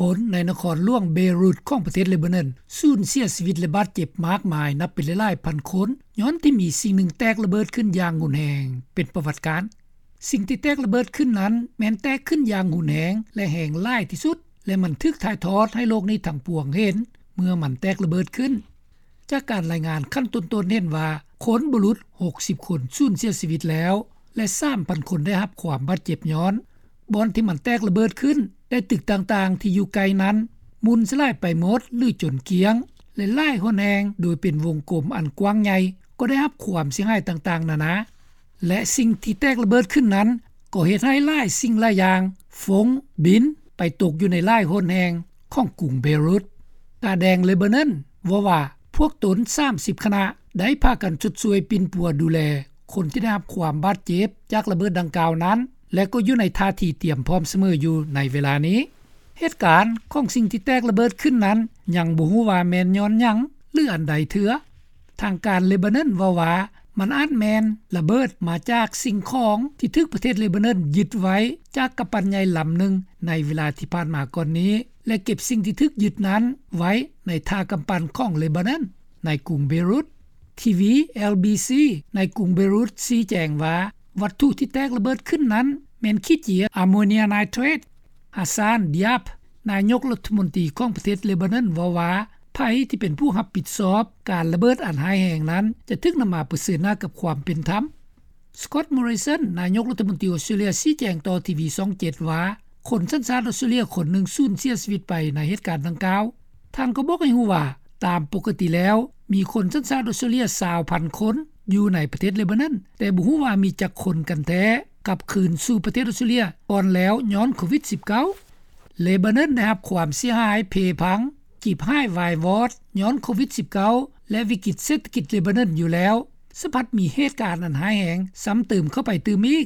ຄົນໃນນະຄອນຫຼວງເບຣຸດຂອງປະເທດເລບານອນ ສູນເສຍຊີວິດ ແລະ ບາດເຈັບມາກມາຍ ນັບເປັນຫຼາຍໆພັນຄົນ ຍ້ອນທີ່ມີສິ່ງໜຶ່ງແຕກລະເບີດຂຶ້ນຢ່າງຮຸນແຮງ ເປັນປະຫວັດການ. ສິ່ງທີ່ແຕກລະເບີດຂຶ້ນນັ້ນ ແມ່ນແຕກຂຶ້ນຢ່າງຮຸນແຮງ ແລະ ແຮງຫຼາຍທີ່ສຸດ ແລະ ມັນຖືກຖ່າຍທອດໃຫ້ໂລກນີ້ທັງປວງເຫັນ ເມື່ອມັນແຕກລະເບີດຂຶ້ນ. ຈາກການລາຍງານຂັ້ນຕົ້ນໆເຫັນວ່າ ຄົນບໍ່ຫຼຸດຫົກສິບຄົນສູນເສຍຊີວິດແລ້ວ ແລະ ສາມພັນຄົນໄດ້ຮັບຄວາມບາດເຈັບຍ້ອນ ບ່ອນທີ່ມັນແຕກລະເບີດຂຶ້ນ ແລະ ຕຶກຕ່າງໆທີ່ຢູ່ໃກ້ນັ້ນ ໝຸ່ນສະຫຼາຍໄປໝົດ ຫຼື ຈົນກ້ຽງ ແລະ ຫຼາຍຫົນແຫ່ງ ໂດຍເປັນວົງກົມອັນກວ້າງໃຫຍ່ ກໍໄດ້ຮັບຄວາມເສຍຫາຍຕ່າງໆນານາ. ແລະ ສິ່ງທີ່ແຕກລະເບີດຂຶ້ນນັ້ນ ກໍເຮັດໃຫ້ຫຼາຍສິ່ງຫຼາຍຢ່າງ ຟົ້ງ ບິນ ໄປຕົກຢູ່ໃນຫຼາຍຫົນແຫ່ງຂອງກຸງເບຣຸດ. ກາແດງເລບານອນເວົ້າວ່າ ພວກຕົນສາມສິບຄະນະ ໄດ້ພາກັນຊົດຊ່ວຍປິ່ນປົວດູແລຄົນທີ່ໄດ້ຮັບຄວາມບາດເຈັບຈາກລະເບີດດັ່ງກ່າວນັ້ນ ແລະ ກໍຢູ່ໃນທ່າທີຕຽມພ້ອມສະເໝີຢູ່ໃນເວລານີ້. ເຫດການຂອງສິ່ງທີ່ແຕກລະເບີດຂຶ້ນນັ້ນ ຍັງບໍ່ຮູ້ວ່າແມ່ນຍ້ອນຫຍັງ ຫຼື ອັນໃດເທື່ອ. ທາງການເລບານອນເວົ້າວ່າ ມັນອາດແມ່ນລະເບີດມາຈາກສິ່ງຂອງທີ່ຖືກປະເທດເລບານອນຍຶດໄວ້ຈາກກຳປັ່ນໃຫຍ່ລຳໜຶ່ງໃນເວລາທີ່ຜ່ານມາກ່ອນນີ້ ແລະ ເກັບສິ່ງທີ່ຖືກຍຶດນັ້ນໄວ້ໃນທ່າກຳປັ່ນຂອງເລບານອນໃນກຸງເບຣຸດ. ທີວີ ເອລບີຊີ ໃນກຸງເບຣຸດຊີ້ແຈງວ່າ ວັດຖຸທີ່ແຕກລະເບີດຂຶ້ນນັ້ນແມ່ນຂີ້ເຈຍອາໂມເນຍໄນເທຣດ. ຮາຊານ ດຽບ ນາຍົກລັດຖະມົນຕີຂອງປະເທດເລບານອນເວົ້າວ່າ ໃຜທີ່ເປັນຜູ້ຮັບຜິດຊອບການລະເບີດອັນຮ້າຍແຮງນັ້ນ ຈະຖືກນຳມາປະເຊີນໜ້າກັບຄວາມເປັນທຳ. ສະກອດ ມໍຣິສັນ ນາຍົກລັດຖະມົນຕີອອສເຕຣເລັຽຊີ້ແຈງຕໍ່ທີວີຊ່ອງເຈັດວ່າ ຄົນສັນຊາດອອສເຕຣເລັຽຄົນໜຶ່ງສູນເສຍຊີວິດໄປໃນເຫດການດັ່ງກ່າວ. ທ່ານກໍບອກໃຫ້ຮູ້ວ່າ ຕາມປົກກະຕິແລ້ວ ມີຄົນສັນຊາດອອສເຕຣເລັຽຊາວພັນຄົນຢູ່ໃນປະເທດເລບານອນ ແຕ່ບໍ່ຮູ້ວ່າມີຈັກຄົນກັນແທ້ກັບຄືນສູ່ປະເທດອອສເຕຣເລັຽກ່ອນແລ້ວຍ້ອນໂຄວິດສິບເກົ້າ. ເລບານອນໄດ້ຮັບຄວາມເສຍຫາຍເພພັງ ຈີບຫາຍວາຍວອດຍ້ອນໂຄວິດສິບເກົ້າ ແລະ ວິກິດເສດຖະກິດເລບານອນຢູ່ແລ້ວ ສະພັດມີເຫດການອັນຮ້າຍແຮງຊ້ຳເຕີມເຂົ້າໄປຕື່ມອີກ.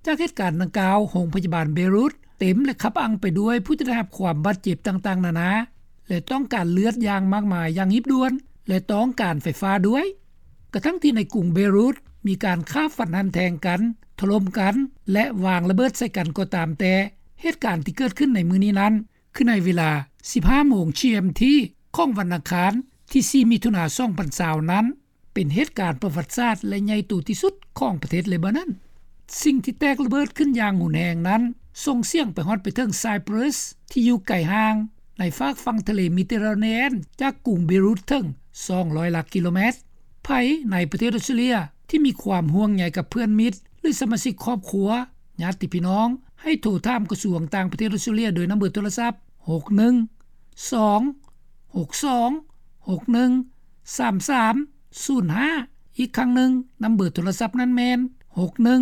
ຈາກເຫດການດັ່ງກ່າວ ໂຮງພະຍາບານເບຣຸດເຕັມ ແລະ ຄັບອັ່ງໄປດ້ວຍຜູ້ທີ່ໄດ້ຮັບຄວາມບາດເຈັບຕ່າງໆນານາ ແລະ ຕ້ອງການເລືອດຢ່າງມາກມາຍຢ່າງຮີບດ່ວນ ແລະ ຕ້ອງການໄຟຟ້າດ້ວຍ. ກະທັ່ງທີ່ໃນກຸງເບຣຸດມີການຂ້າຟັນຫັນແທງກັນ, ຖະຫຼົ່ມກັນ ແລະ ວາງລະເບີດໃສ່ກັນກໍຕາມແຕ່, ເຫດການທີ່ເກີດຂຶ້ນໃນມື້ນີ້ນັ້ນ ຄືໃນເວລາສິບຫ້າໂມງ ຈີເອັມທີ ຂອງວັນອັງຄານທີສີ່ ມິຖຸນາ ສອງພັນຊາວນັ້ນ ເປັນເຫດການປະຫວັດສາດ ແລະ ໃຫຍ່ໂຕທີ່ສຸດຂອງປະເທດເລບານອນ. ສິ່ງທີ່ແຕກລະເບີດຂຶ້ນຢ່າງຮຸນແຮງນັ້ນ ສົ່ງສຽງໄປຮອດໄປເຖິງໄຊປຣັສ ທີ່ຢູ່ໄກຫ່າງໃນຟາກຝັ່ງທະເລເມດິເຕເຣເນຍນ ຈາກກຸງເບຣຸດເຖິງສອງຮ້ອຍຫຼັກກິໂລແມັດ. ໃຜໃນປະເທດອອສເຕຣເລັຽທີ່ມີຄວາມຫ່ວງໃຍກັບເພື່ອນມິດ ຫຼື ສະມາຊິກຄອບຄົວ, ຍາດຕິພີ່ນ້ອງ ໃຫ້ໂທຖາມກະຊວງຕ່າງປະເທດອອສເຕຣເລັຽໂດຍນຳເບີໂທລະສັບ ຫົກໜຶ່ງສອງ ຫົກສອງ ຫົກໜຶ່ງ ສາມສາມ ສູນຫ້າ. ອີກຄັ້ງໜຶ່ງ, ນຳເບີໂທລະສັບນັ້ນແມ່ນ ຫົກໜຶ່ງ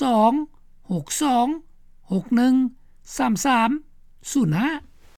ສອງ ຫົກສອງ ຫົກໜຶ່ງ ສາມສາມ ສູນຫ້າ.